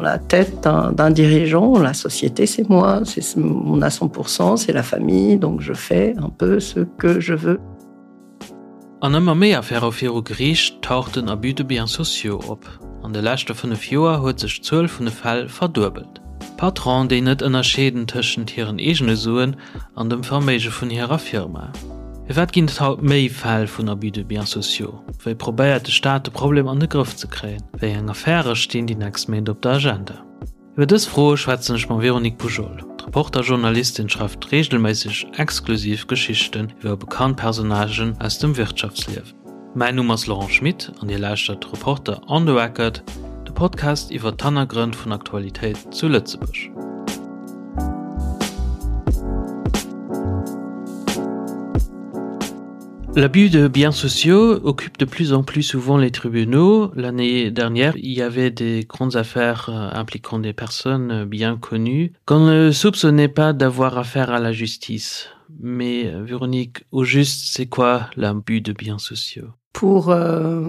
la tête d'un dirigeant, la société c'est moi, on a 100%, c'est la famille, donc je fais un peu ce que je veux. An ëmmer méi Affäre viru Geriicht taucht den Abus de biens sociaux op. An de leschte 5 Joer huet sech d'Zuel vun de Fäll verduebelt. Patronen, déi net ënnerscheeden tëschent hiren eegene Suen an dem Verméige vun hirer Firma. Firwat ginn et haut méi Fäll vun Abus de biens sociaux? Wéi probéiert de Staat de Problem an de Grëff ze kréien? Wéi eng Affäre stinn déi nächst Méint op der Agenda? Iwwer dës Froe schwätzen ech mam Véronique Poujol. D'Reporter-Journalistin schreift reegelméisseg exklusiv Geschichten iwwer bekannt Personnagen aus dem Wirtschaftsliewen. Mäin Numm ass Laurent Schmit an Dir lauschtert Reporter on the Record, de Podcast iwwer d'Hannergrënn vun Aktualitéit zu Lëtzebuerg. L'abus de biens sociaux occupe de plus en plus souvent les tribunaux. L'année dernière, il y avait des grandes affaires euh, impliquant des personnes bien connues qu'on ne soupçonnait pas d'avoir affaire à la justice. Mais euh, Véronique, au juste, c'est quoi l'abus de biens sociaux Pour, euh,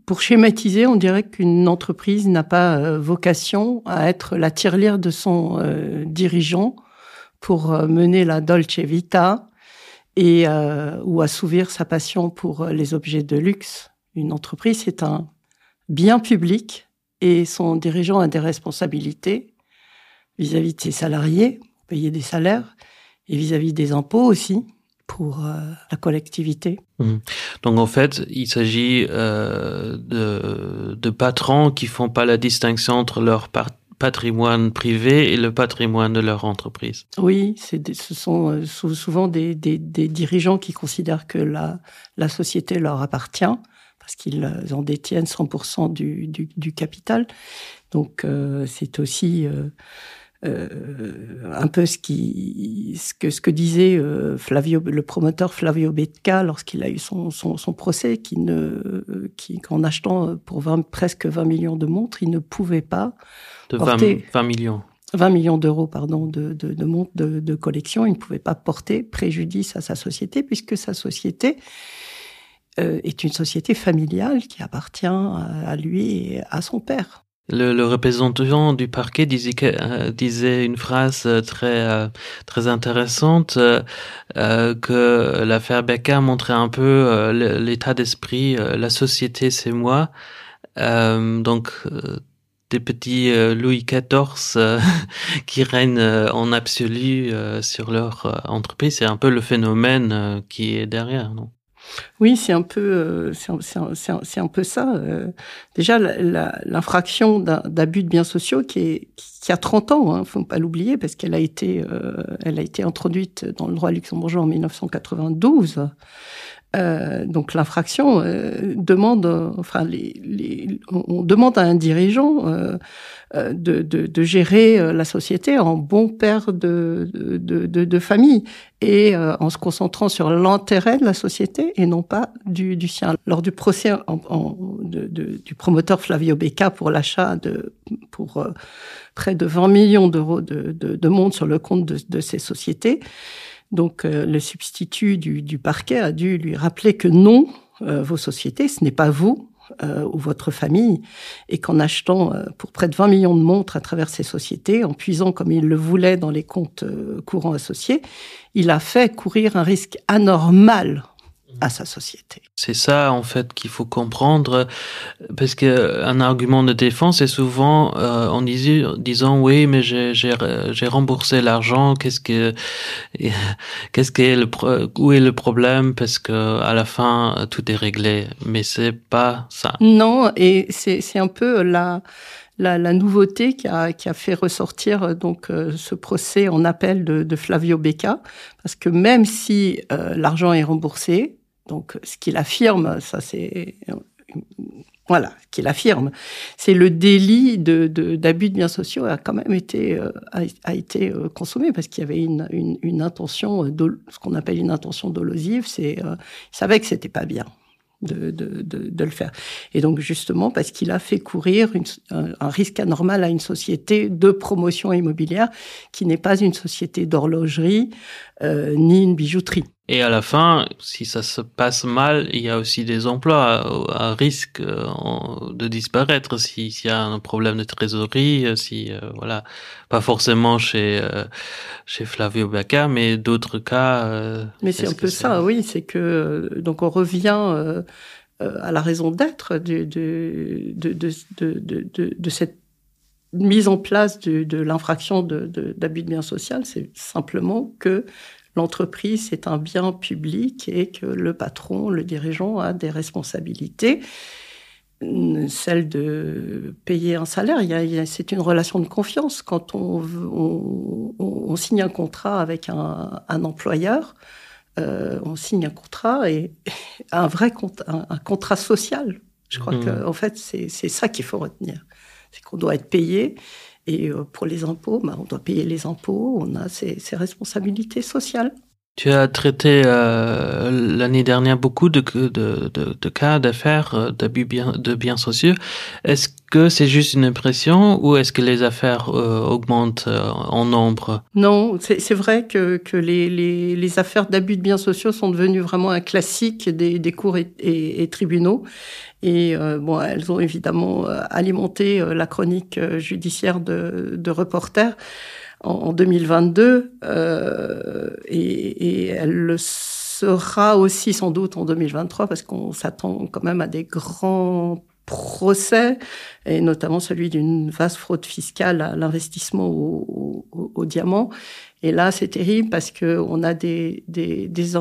pour schématiser, on dirait qu'une entreprise n'a pas euh, vocation à être la tirelire de son euh, dirigeant pour euh, mener la Dolce Vita et euh, ou assouvir sa passion pour euh, les objets de luxe. Une entreprise, c'est un bien public et son dirigeant a des responsabilités vis-à-vis -vis de ses salariés, payer des salaires et vis-à-vis -vis des impôts aussi pour euh, la collectivité. Mmh. Donc en fait, il s'agit euh, de, de patrons qui font pas la distinction entre leur patrimoine privé et le patrimoine de leur entreprise. Oui, des, ce sont euh, souvent des, des, des dirigeants qui considèrent que la, la société leur appartient parce qu'ils en détiennent 100% du, du, du capital. Donc euh, c'est aussi euh, euh, un peu ce, qui, ce, que, ce que disait euh, Flavio, le promoteur Flavio Becca lorsqu'il a eu son, son, son procès, qui ne, qui, qu'en achetant euh, pour 20, presque 20 millions de montres, il ne pouvait pas de porter, 20, 20 millions. 20 millions d'euros pardon de, de, de montres de, de collection, il ne pouvait pas porter préjudice à sa société puisque sa société euh, est une société familiale qui appartient à lui et à son père. Le, le représentant du parquet disait, que, euh, disait une phrase euh, très, euh, très intéressante euh, euh, que l'affaire Becca montrait un peu euh, l'état d'esprit euh, la société c'est moi euh, donc euh, des petits euh, Louis XIV euh, qui règnent euh, en absolu euh, sur leur euh, entreprise c'est un peu le phénomène euh, qui est derrière non Oui, c'est un peu euh, c'est un, un peu ça. Euh, déjà l'infraction d'abus de biens sociaux qui, est, qui a 30 ans, hein, faut pas l'oublier parce qu'elle a été euh, elle a été introduite dans le droit luxembourgeois en 1992. Euh, donc l'infraction euh, demande enfin les, les, on demande à un dirigeant euh, euh, de, de, de gérer euh, la société en bon père de, de, de, de famille et euh, en se concentrant sur l'intérêt de la société et non pas du, du sien. Lors du procès en, en, de, de, du promoteur Flavio Becca pour l'achat de pour euh, près de 20 millions d'euros de, de, de monde sur le compte de, de ces sociétés, donc euh, le substitut du, du parquet a dû lui rappeler que non, euh, vos sociétés, ce n'est pas vous, euh, ou votre famille et qu'en achetant euh, pour près de 20 millions de montres à travers ces sociétés, en puisant comme il le voulait dans les comptes euh, courants associés, il a fait courir un risque anormal à sa société. C'est ça en fait qu'il faut comprendre parce que un argument de défense est souvent euh, en disant, disant oui mais j'ai remboursé l'argent qu'est-ce que qu'est-ce que est le où est le problème parce que à la fin tout est réglé mais c'est pas ça. Non et c'est un peu la la, la nouveauté qui a, qui a fait ressortir euh, donc euh, ce procès en appel de, de Flavio Becca parce que même si euh, l'argent est remboursé, donc ce qu'il affirme ça c'est voilà qu'il affirme c'est le délit de d'abus de, de biens sociaux a quand même été euh, a, a été euh, consommé parce qu'il y avait une, une, une intention de ce qu'on appelle une intention dolosive c'est euh, il savait que c'était pas bien de, de, de, de le faire. Et donc justement parce qu'il a fait courir une, un, un risque anormal à une société de promotion immobilière qui n'est pas une société d'horlogerie euh, ni une bijouterie. Et à la fin, si ça se passe mal, il y a aussi des emplois à risque euh, de disparaître s'il si y a un problème de trésorerie, euh, si euh, voilà pas forcément chez euh, chez Flavio Becca, mais d'autres cas. Euh, mais c'est un peu ça, oui, c'est que donc on revient euh, à la raison d'être de, de, de, de, de, de, de, de cette mise en place de, de l'infraction d'abus de, de, de biens social, c'est simplement que l'entreprise est un bien public et que le patron, le dirigeant a des responsabilités celle de payer un salaire c'est une relation de confiance quand on, on, on signe un contrat avec un, un employeur euh, on signe un contrat et un vrai compte un, un contrat social je crois mmh. que en fait c'est ça qu'il faut retenir c'est qu'on doit être payé et euh, pour les impôts ben, on doit payer les impôts on a ses, ses responsabilités sociales Tu as traité euh, l'année dernière beaucoup de, de, de, de cas d'affaires euh, d'abus bien, de biens sociaux. Est-ce que c'est juste une impression ou est-ce que les affaires euh, augmentent euh, en nombre Non, c'est vrai que, que les, les, les affaires d'abus de biens sociaux sont devenues vraiment un classique des, des cours et, et, et tribunaux. Et euh, bon, elles ont évidemment euh, alimenté euh, la chronique judiciaire de, de reporters en, en 2022 euh, et, et elle le sera aussi sans doute en 2023 parce qu'on s'attend quand même à des grands procès et notamment celui d'une vaste fraude fiscale à l'investissement au, au, au diamant. Et là, c'est terrible parce que on a des, des, des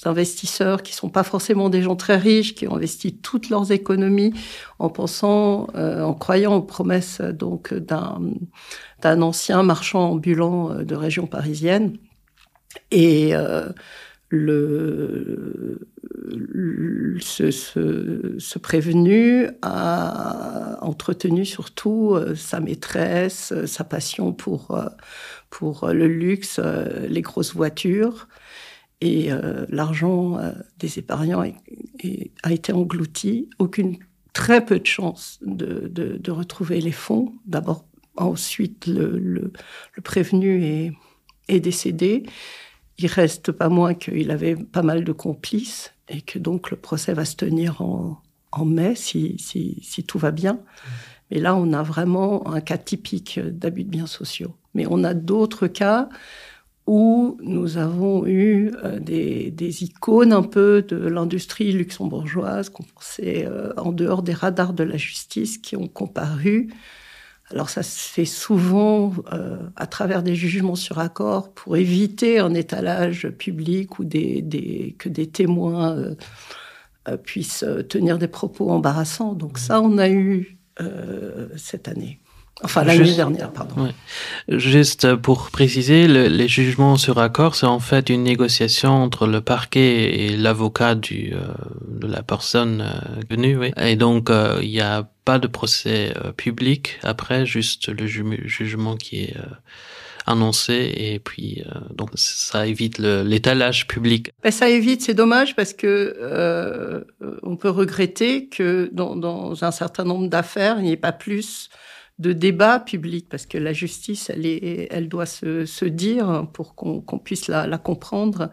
investisseurs qui sont pas forcément des gens très riches, qui ont investi toutes leurs économies en pensant, euh, en croyant aux promesses donc d'un d'un ancien marchand ambulant euh, de région parisienne. Et euh, le, le, ce, ce, ce prévenu a entretenu surtout euh, sa maîtresse, euh, sa passion pour, pour le luxe, les grosses voitures et euh, l'argent euh, des épargnants est, est, a été englouti. Aucune très peu de chance de, de, de retrouver les fonds. D'abord ensuite le, le, le prévenu est, est décédé. Il reste pas moins qu'il avait pas mal de complices et que donc le procès va se tenir en, en mai si, si, si tout va bien. Mais là, on a vraiment un cas typique d'abus de biens sociaux. Mais on a d'autres cas où nous avons eu euh, des, des icônes un peu de l'industrie luxembourgeoise qu'on pensait euh, en dehors des radars de la justice qui ont comparu. Alors ça se fait souvent euh, à travers des jugements sur accord pour éviter un étalage public ou des, des, que des témoins euh, euh puissent euh, tenir des propos embarrassants. Donc ça, on a eu euh, cette année. Enfin l'année dernière, pardon. Ouais. Juste pour préciser, le, les jugements sur accord, c'est en fait une négociation entre le parquet et l'avocat du euh, de la personne euh, venue. Oui. Et donc euh, il n'y a pas de procès euh, public après, juste le ju jugement qui est euh, annoncé et puis euh, donc ça évite l'étalage public. Ben, ça évite, c'est dommage parce que euh, on peut regretter que dans, dans un certain nombre d'affaires, il n'y ait pas plus de débat public parce que la justice elle est elle doit se, se dire pour qu'on qu puisse la, la comprendre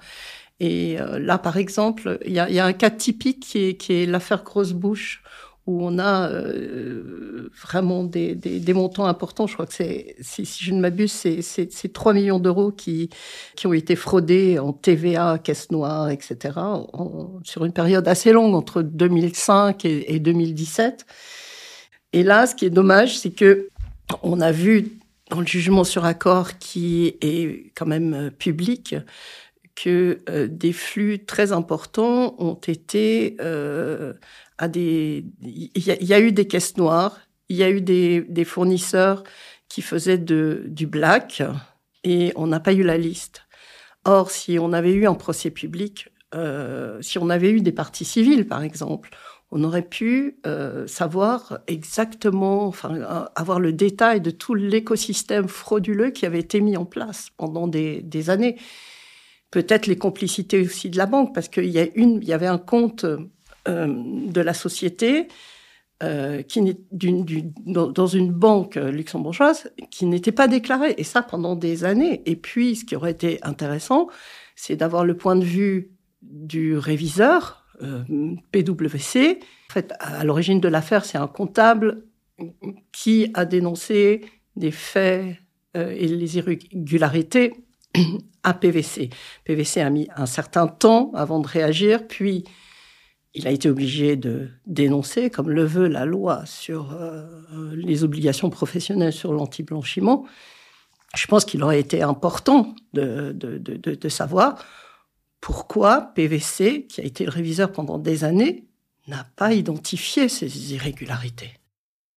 et euh, là par exemple il y a, y a un cas typique qui est, qui est l'affaire grosse bouche où on a euh, vraiment des, des, des montants importants je crois que c'est si, si je ne m'abuse c'est 3 millions d'euros qui qui ont été fraudés en TVA caisse noire etc en, sur une période assez longue entre 2005 et, et 2017 et là ce qui est dommage c'est que on a vu dans le jugement sur accord qui est quand même euh, public que euh, des flux très importants ont été euh, à des il y, y a eu des caisses noires il y a eu des, des fournisseurs qui faisaient de du black et on n'a pas eu la liste or si on avait eu un procès public euh, si on avait eu des parties civiles par exemple on aurait pu euh, savoir exactement enfin euh, avoir le détail de tout l'écosystème frauduleux qui avait été mis en place pendant des, des années peut-être les complicités aussi de la banque parce qu'il y a une il y avait un compte euh, de la société euh, qui n'est d'une dans, dans une banque luxembourgeoise qui n'était pas déclarée et ça pendant des années et puis ce qui aurait été intéressant c'est d'avoir le point de vue du réviseur euh, PwC. En fait, à l'origine de l'affaire, c'est un comptable qui a dénoncé des faits euh, et les irrégularités à PVC. PVC a mis un certain temps avant de réagir, puis il a été obligé de dénoncer, comme le veut la loi sur euh, les obligations professionnelles sur l'antiblanchiment. Je pense qu'il aurait été important de, de, de, de, de savoir pourquoi PVC, qui a été le réviseur pendant des années, n'a pas identifié ces irrégularités.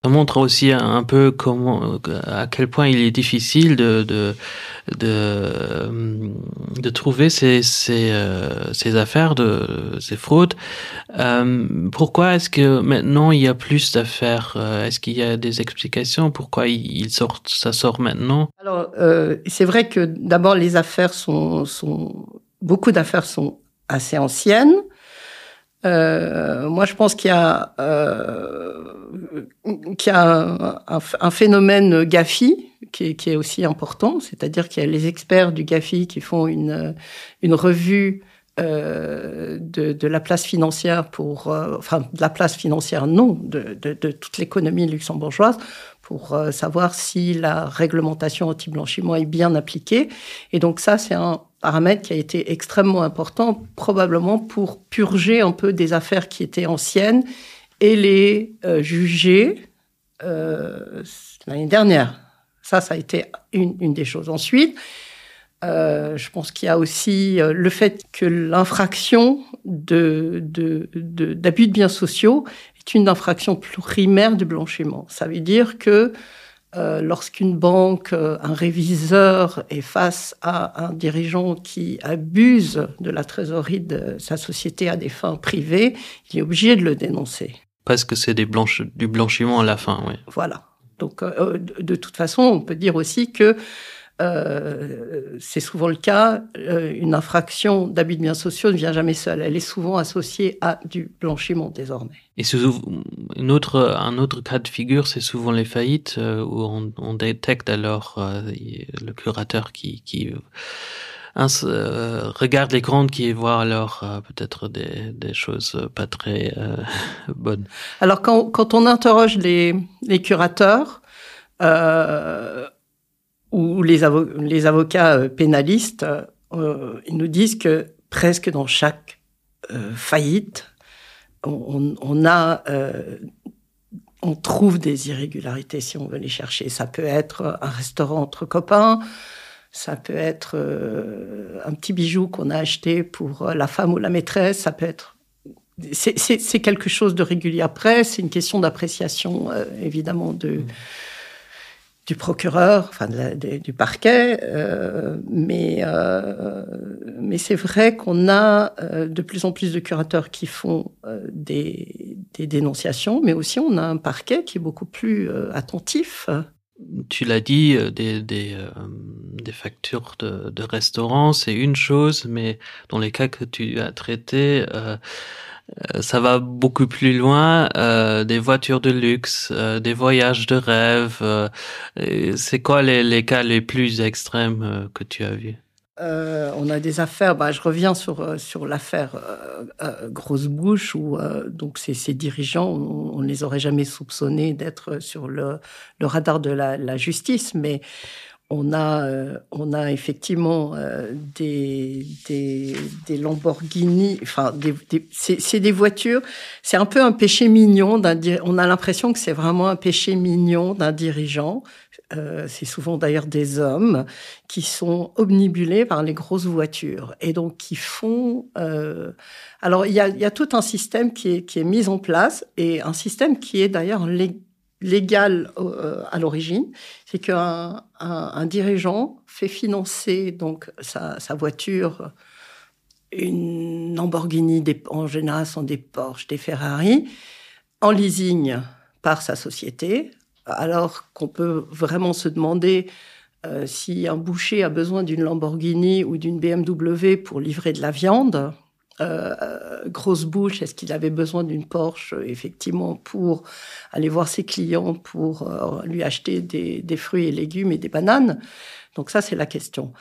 Ça montre aussi un peu comment à quel point il est difficile de de de, de trouver ces, ces, euh, ces affaires de ces fraudes. Euh, pourquoi est-ce que maintenant il y a plus d'affaires euh, Est-ce qu'il y a des explications pourquoi il sort ça sort maintenant Alors euh, c'est vrai que d'abord les affaires sont, sont beaucoup d'affaires sont assez anciennes. Euh, moi, je pense qu'il y a, euh, qu'il y a un, un, un phénomène GAFI qui est, qui est aussi important, c'est-à-dire qu'il y a les experts du GAFI qui font une, une revue euh, de, de la place financière pour euh, enfin de la place financière non de, de, de toute l'économie luxembourgeoise pour euh, savoir si la réglementation anti-blanchiment est bien appliquée. Et donc ça, c'est un paramètre qui a été extrêmement important, probablement pour purger un peu des affaires qui étaient anciennes et les euh, juger euh, l'année dernière. Ça, ça a été une, une des choses. Ensuite, euh, je pense qu'il y a aussi euh, le fait que l'infraction d'abus de, de, de, de biens sociaux est une infraction primaire du blanchiment. Ça veut dire que euh, lorsqu'une banque, euh, un réviseur est face à un dirigeant qui abuse de la trésorerie de sa société à des fins privées, il est obligé de le dénoncer. Parce que c'est des blanches, du blanchiment à la fin. Oui. Voilà. Donc euh, de, de toute façon, on peut dire aussi que euh, c'est souvent le cas, euh, une infraction d'abus de biens sociaux ne vient jamais seule. Elle est souvent associée à du blanchiment désormais. Et une autre, un autre cas de figure, c'est souvent les faillites euh, où on, on détecte alors euh, le curateur qui, qui un, euh, regarde les comptes qui voit alors euh, peut-être des, des choses pas très euh, bonnes. Alors quand, quand on interroge les, les curateurs, euh, ou les, avo les avocats euh, pénalistes, euh, ils nous disent que presque dans chaque euh, faillite, on, on a euh, on trouve des irrégularités si on veut les chercher. Ça peut être un restaurant entre copains, ça peut être euh, un petit bijou qu'on a acheté pour euh, la femme ou la maîtresse, ça peut être c'est quelque chose de régulier après, c'est une question d'appréciation euh, évidemment de mmh du procureur, enfin de la, de, du parquet, euh, mais, euh, mais c'est vrai qu'on a euh, de plus en plus de curateurs qui font euh, des, des dénonciations, mais aussi on a un parquet qui est beaucoup plus euh, attentif. Tu l'as dit, euh, des, des, euh, des factures de, de restaurants, c'est une chose, mais dans les cas que tu as traités, euh, Euh, ça va beaucoup plus loin euh, des voitures de luxe euh, des voyages de rêve euh, c'est quoi les, les cas les plus extrêmes euh, que tu as vu euh, on a des affaires bah, je reviens sur euh, sur l'affaire euh, euh, grosse bouche où euh, donc ces, ces dirigeants on, on ne les aurait jamais soupçonnés d'être sur le, le radar de la, la justice mais on a, euh, on a effectivement euh, des, des, des Lamborghini, enfin, des, des, c'est des voitures, c'est un peu un péché mignon, on a l'impression que c'est vraiment un péché mignon d'un dirigeant. Euh, c'est souvent d'ailleurs des hommes qui sont omnibulés par les grosses voitures et donc qui font. Euh... Alors il y a, y a tout un système qui est, qui est mis en place et un système qui est d'ailleurs légal légal euh, à l'origine, c'est qu'un un, un dirigeant fait financer donc sa, sa voiture, une Lamborghini, des, en général sont des Porsche, des Ferrari, en leasing par sa société, alors qu'on peut vraiment se demander euh, si un boucher a besoin d'une Lamborghini ou d'une BMW pour livrer de la viande, euh, grosse bouche, est-ce qu'il avait besoin d'une Porsche effectivement pour aller voir ses clients pour euh, lui acheter des, des fruits et légumes et des bananes Donc ça c'est la question.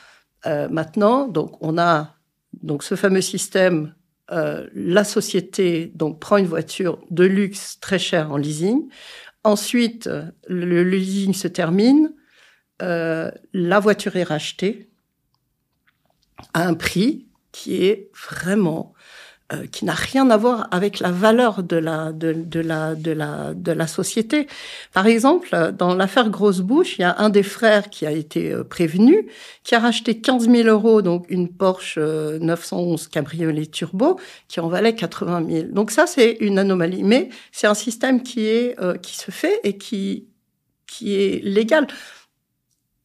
Euh, maintenant donc on a Donc ce fameux système, euh, la société donc prend une voiture de luxe très chère en leasing. Ensuite, le leasing se termine, euh, la voiture est rachetée à un prix qui est vraiment euh, qui n'a rien à voir avec la valeur de la de, de la de la de la société par exemple dans l'affaire grosse bouche il y a un des frères qui a été euh, prévenu qui a racheté 15000 euros donc une porsche 911 euh, cabriolet turbo qui en valait 80 000 donc ça c'est une anomalie mais c'est un système qui est euh, qui se fait et qui qui est légal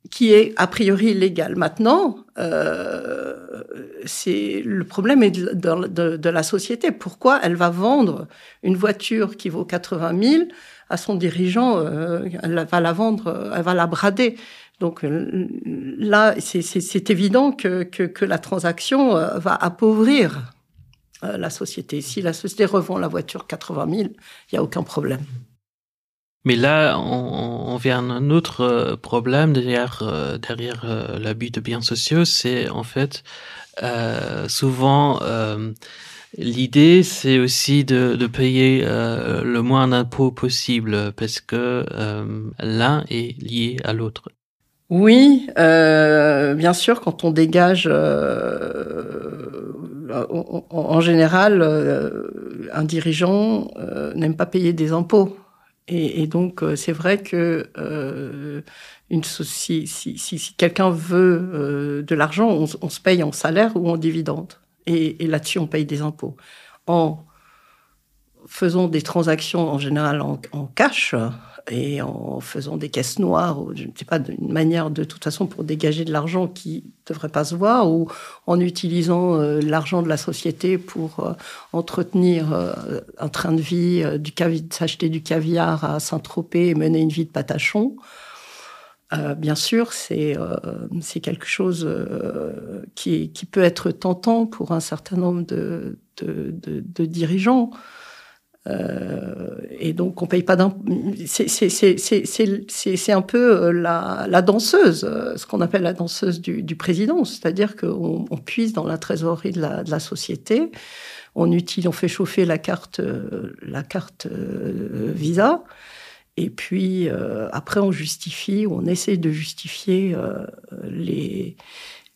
qui est a priori légal maintenant euh, c'est le problème est de, de, de, de la société pourquoi elle va vendre une voiture qui vaut 80 000 à son dirigeant euh, elle va la vendre elle va la brader donc euh, là c'est évident que, que, que la transaction euh, va appauvrir euh, la société si la société revend la voiture 80 000 il y a aucun problème Mais là, on, on vient à un autre euh, problème derrière, euh, derrière euh, l'abus de biens sociaux, c'est en fait euh, souvent euh, l'idée, c'est aussi de, de payer euh, le moins d'impôts possible parce que euh, l'un est lié à l'autre. Oui, euh, bien sûr, quand on dégage euh, en, en général, euh, un dirigeant euh, n'aime pas payer des impôts. Et, et donc euh, c'est vrai que euh, une si, si, si, si quelqu'un veut euh, de l'argent, on, on se paye en salaire ou en dividende. Et, et là-dessus, on paye des impôts. En faisant des transactions en général en, en cash, et en faisant des caisses noires ou je ne sais pas d'une manière de toute façon pour dégager de l'argent qui devrait pas se voir ou en utilisant euh, l'argent de la société pour euh, entretenir euh, un train de vie euh, du s'acheter du caviar à Saint-Tropez et mener une vie de patachon. Euh, bien sûr, c'est euh, quelque chose euh, qui, qui peut être tentant pour un certain nombre de, de, de, de dirigeants. Euh, et donc on paye pas d'un c'est un peu euh, la, la danseuse euh, ce qu'on appelle la danseuse du, du président c'est à dire qu'on on puise dans la trésorerie de la, de la société on utilise on fait chauffer la carte la carte visa et puis euh, après on justifie on essaie de justifier euh, les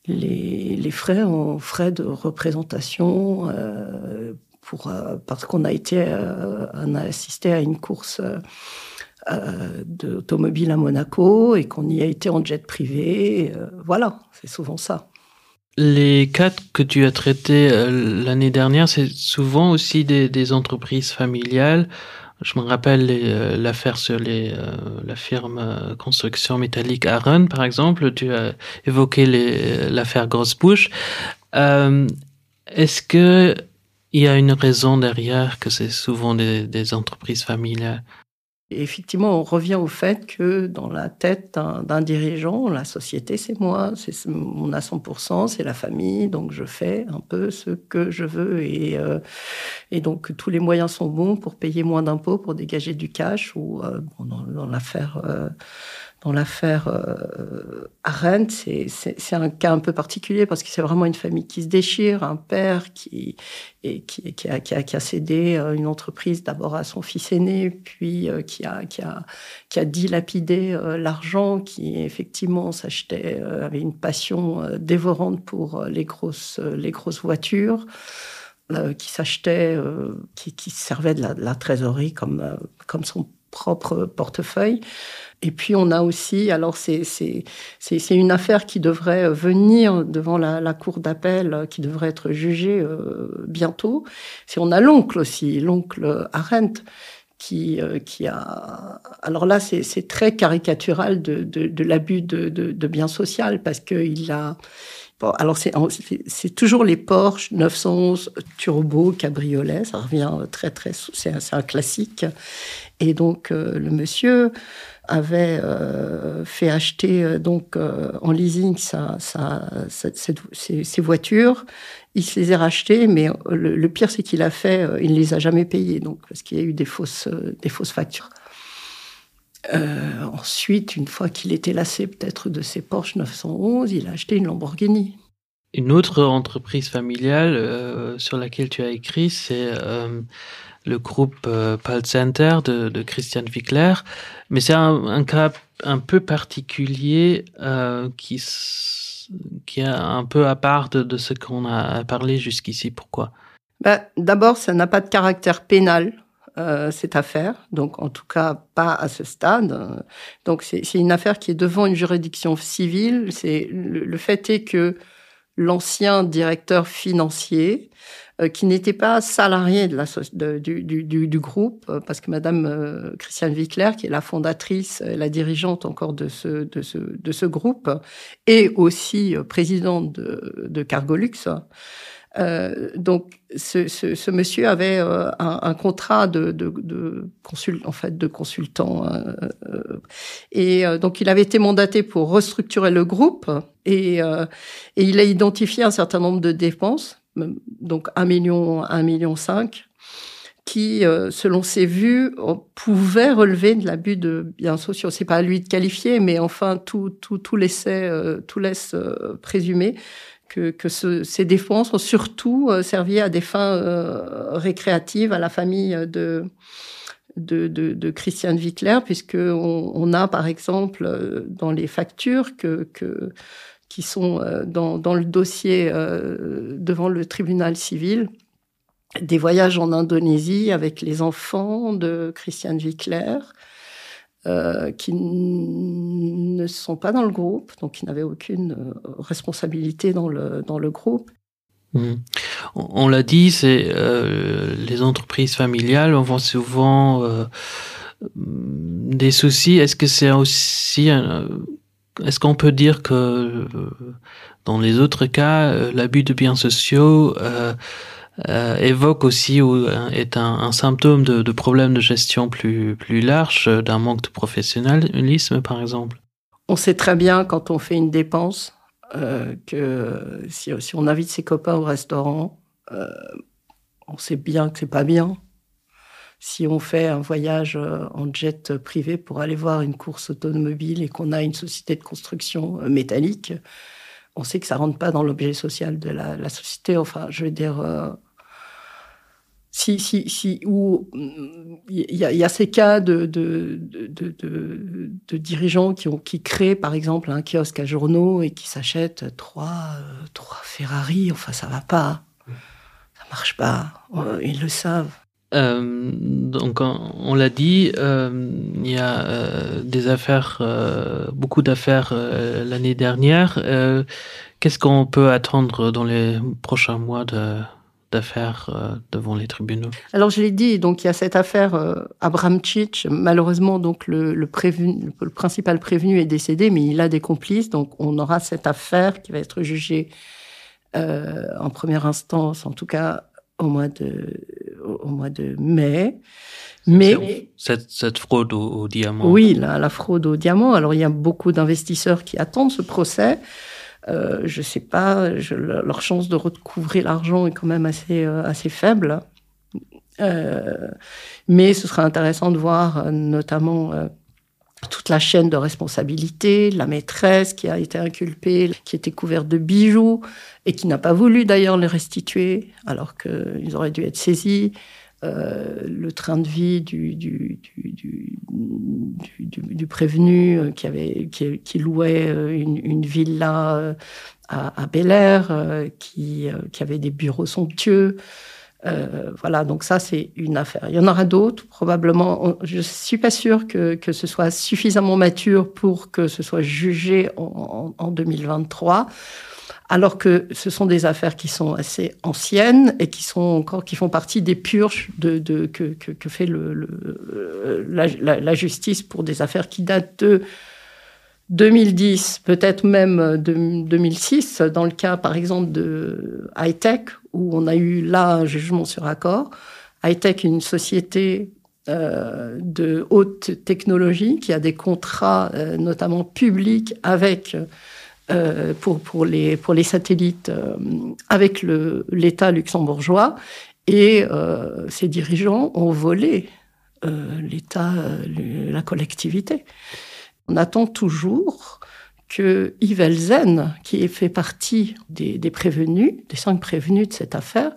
les, les frais en frais de représentation euh, pour euh, parce qu'on a été euh, on a assisté à une course euh, euh, d'automobile à Monaco et qu'on y a été en jet privé euh, voilà c'est souvent ça. Les cas que tu as traités euh, l'année dernière, c'est souvent aussi des, des entreprises familiales. Je me rappelle euh, l'affaire sur les, euh, la firme euh, construction métallique Aaron, par exemple, tu as évoqué l'affaire Grosse Bouche. Euh, Est-ce que il y a une raison derrière que c'est souvent des, des entreprises familiales. Effectivement, on revient au fait que dans la tête d'un dirigeant, la société, c'est moi, c'est on a 100%, c'est la famille, donc je fais un peu ce que je veux et, euh, et donc tous les moyens sont bons pour payer moins d'impôts, pour dégager du cash ou euh, bon, dans, dans l'affaire euh, dans l'affaire euh, Arendt, c'est un cas un peu particulier parce que c'est vraiment une famille qui se déchire, un père qui, et qui, qui, a, qui, a, qui a cédé euh, une entreprise d'abord à son fils aîné, puis euh, qui, a, qui, a, qui a dilapidé euh, l'argent, qui effectivement s'achetait, euh, avait une passion euh, dévorante pour euh, les grosses, euh, les grosses voitures, euh, qui s'achetait, euh, qui, qui servait de la, de la trésorerie comme, euh, comme son propre portefeuille. Et puis on a aussi alors c'est une affaire qui devrait venir devant la, la cour d'appel qui devrait être jugée euh, bientôt. Si on a l'oncle aussi, l'oncle Arendt qui, euh, qui a alors là c'est très caricatural de, de, de l'abus de, de, de bien social parce qu'il a bon, alors c'est toujours les Porsche 911 turbo cabriolet, ça revient très très c'est un, un classique et donc euh, le monsieur avait euh, fait acheter euh, donc euh, en leasing sa, sa, sa, cette, ses, ses voitures il se les a rachetées mais euh, le, le pire c'est qu'il a fait euh, il ne les a jamais payées donc parce qu'il y a eu des fausses des fausses factures euh, ensuite une fois qu'il était lassé peut-être de ses Porsche 911 il a acheté une Lamborghini. Une autre entreprise familiale euh, sur laquelle tu as écrit, c'est euh, le groupe euh, Pal Center de, de Christian Wickler. Mais c'est un, un cas un peu particulier euh, qui, qui est un peu à part de, de ce qu'on a parlé jusqu'ici. Pourquoi D'abord, ça n'a pas de caractère pénal. Euh, cette affaire, donc en tout cas pas à ce stade. Donc c'est une affaire qui est devant une juridiction civile. C'est le, le fait est que l'ancien directeur financier, euh, qui n'était pas salarié de la, de, du, du, du, du groupe, euh, parce que Madame euh, Christiane Wickler, qui est la fondatrice, euh, la dirigeante encore de ce, de ce, de ce groupe, et aussi présidente de, de Cargolux, Euh, donc ce, ce, ce monsieur avait euh, un, un contrat de, de, de consul en fait de consultant euh, euh, et euh, donc il avait été mandaté pour restructurer le groupe et, euh, et il a identifié un certain nombre de dépenses donc 1 million 1 million 5 qui euh, selon ses vues pouvait relever de l'abus de biens sociaux c'est pas à lui de qualifier mais enfin tout tout tout laissait euh, tout laisse euh, présumer que, que ce, ces défenses ont surtout euh, servi à des fins euh, récréatives à la famille de de, de, de Christiane Wittler puisque on, on a par exemple euh, dans les factures que, que qui sont euh, dans, dans le dossier euh, devant le tribunal civil des voyages en Indonésie avec les enfants de Christiane Wittler euh, qui ne sont pas dans le groupe, donc qui n'avaient aucune euh, responsabilité dans le, dans le groupe. Mmh. On, on l'a dit, c'est euh, les entreprises familiales on voit souvent euh, des soucis. Est-ce que c'est aussi euh, est-ce qu'on peut dire que euh, dans les autres cas, euh, l'abus de biens sociaux euh, euh, évoque aussi ou euh, est un, un symptôme de, de problèmes de gestion plus, plus large, euh, d'un manque de professionnalisme par exemple. On sait très bien quand on fait une dépense euh, que si, si on invite ses copains au restaurant, euh, on sait bien que c'est pas bien. Si on fait un voyage euh, en jet privé pour aller voir une course automobile et qu'on a une société de construction euh, métallique, on sait que ça rentre pas dans l'objet social de la, la société. Enfin, je veux dire, euh, si, si, si, ou il y, y a ces cas de, de, de, de, de dirigeants qui, ont, qui créent par exemple un kiosque à journaux et qui s'achètent trois, euh, trois Ferrari, enfin ça va pas, ça marche pas, euh, ils le savent. Euh, donc on, on l'a dit, euh, il y a euh, des affaires, euh, beaucoup d'affaires euh, l'année dernière. Euh, Qu'est-ce qu'on peut attendre dans les prochains mois de d'affaires euh, devant les tribunaux Alors je l'ai dit, donc il y a cette affaire euh, Abramchich, malheureusement donc le, le, prévenu, le principal prévenu est décédé, mais il a des complices, donc on aura cette affaire qui va être jugée euh, en première instance, en tout cas au mois de, au mois de mai. Mais cette, cette fraude au, au diamant. Oui, la, la fraude au diamant. Alors il y a beaucoup d'investisseurs qui attendent ce procès. Euh, je sais pas, je, leur chance de recouvrir l'argent est quand même assez, euh, assez faible. Euh, mais ce sera intéressant de voir euh, notamment euh, toute la chaîne de responsabilité, la maîtresse qui a été inculpée, qui était couverte de bijoux et qui n'a pas voulu d'ailleurs les restituer alors qu'ils auraient dû être saisis. Euh, le train de vie du, du, du, du, du, du, du prévenu euh, qui, avait, qui, qui louait euh, une, une villa à, à Bel Air, qui, qui avait des bureaux somptueux. Euh, voilà, donc ça c'est une affaire. Il y en aura d'autres probablement. Je suis pas sûre que, que ce soit suffisamment mature pour que ce soit jugé en, en, en 2023 alors que ce sont des affaires qui sont assez anciennes et qui sont encore qui font partie des purges de, de, que, que, que fait le, le, la, la, la justice pour des affaires qui datent de 2010, peut-être même de 2006, dans le cas par exemple de high-tech, où on a eu là un jugement sur accord. High-tech, une société euh, de haute technologie qui a des contrats euh, notamment publics avec euh, pour, pour, les, pour les satellites euh, avec l'État luxembourgeois et euh, ses dirigeants ont volé euh, l'État, euh, la collectivité. On attend toujours que. que Yves Elzen, qui fait partie des, des prévenus, des cinq prévenus de cette affaire,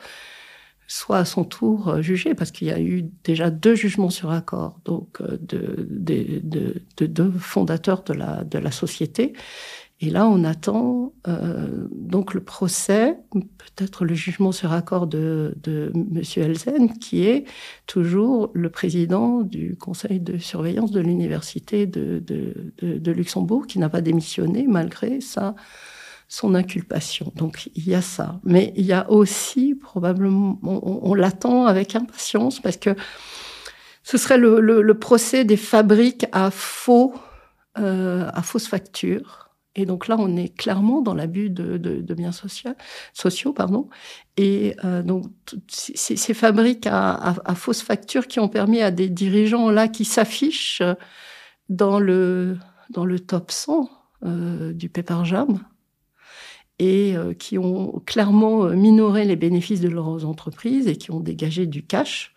soit à son tour euh, jugé parce qu'il y a eu déjà deux jugements sur accord donc euh, de, de, de, de deux fondateurs de la, de la société. Et là, on attend euh, donc le procès, peut-être le jugement sur accord de, de M. Elzen, qui est toujours le président du conseil de surveillance de l'université de, de, de, de Luxembourg, qui n'a pas démissionné malgré sa, son inculpation. Donc il y a ça. Mais il y a aussi probablement, on, on, on l'attend avec impatience parce que ce serait le, le, le procès des fabriques à faux, euh, à fausses factures. Et donc là, on est clairement dans l'abus de, de, de biens social, sociaux. Pardon. Et euh, donc, ces, ces fabriques à, à, à fausses factures qui ont permis à des dirigeants là qui s'affichent dans le, dans le top 100 euh, du Pepper Jam et euh, qui ont clairement euh, minoré les bénéfices de leurs entreprises et qui ont dégagé du cash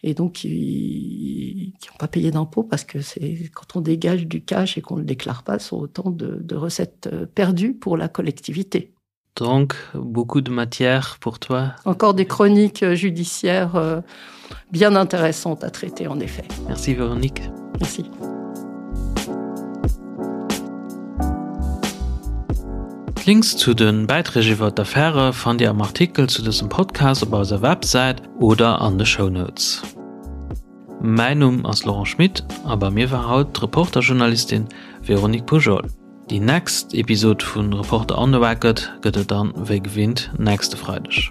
et donc qui n'ont pas payé d'impôts parce que c'est quand on dégage du cash et qu'on le déclare pas sont autant de, de recettes euh, perdues pour la collectivité. Donc beaucoup de matière pour toi. Encore des chroniques euh, judiciaires euh, bien intéressantes à traiter en effet. Merci Véronique. Merci. D'Links zu de Bäiträg iwwer d'Affäre fannt Dir am Artikel zu dësem Podcast op eiser Websäit oder an de Shownotes. Mäin Numm ass Laurent Schmit a bei mir war haut d'Reporter-Journalistin Véronique Poujol. Déi next Episod vu Reporter on the Record gëtt et dann wéi gewinnt nächste Freideg.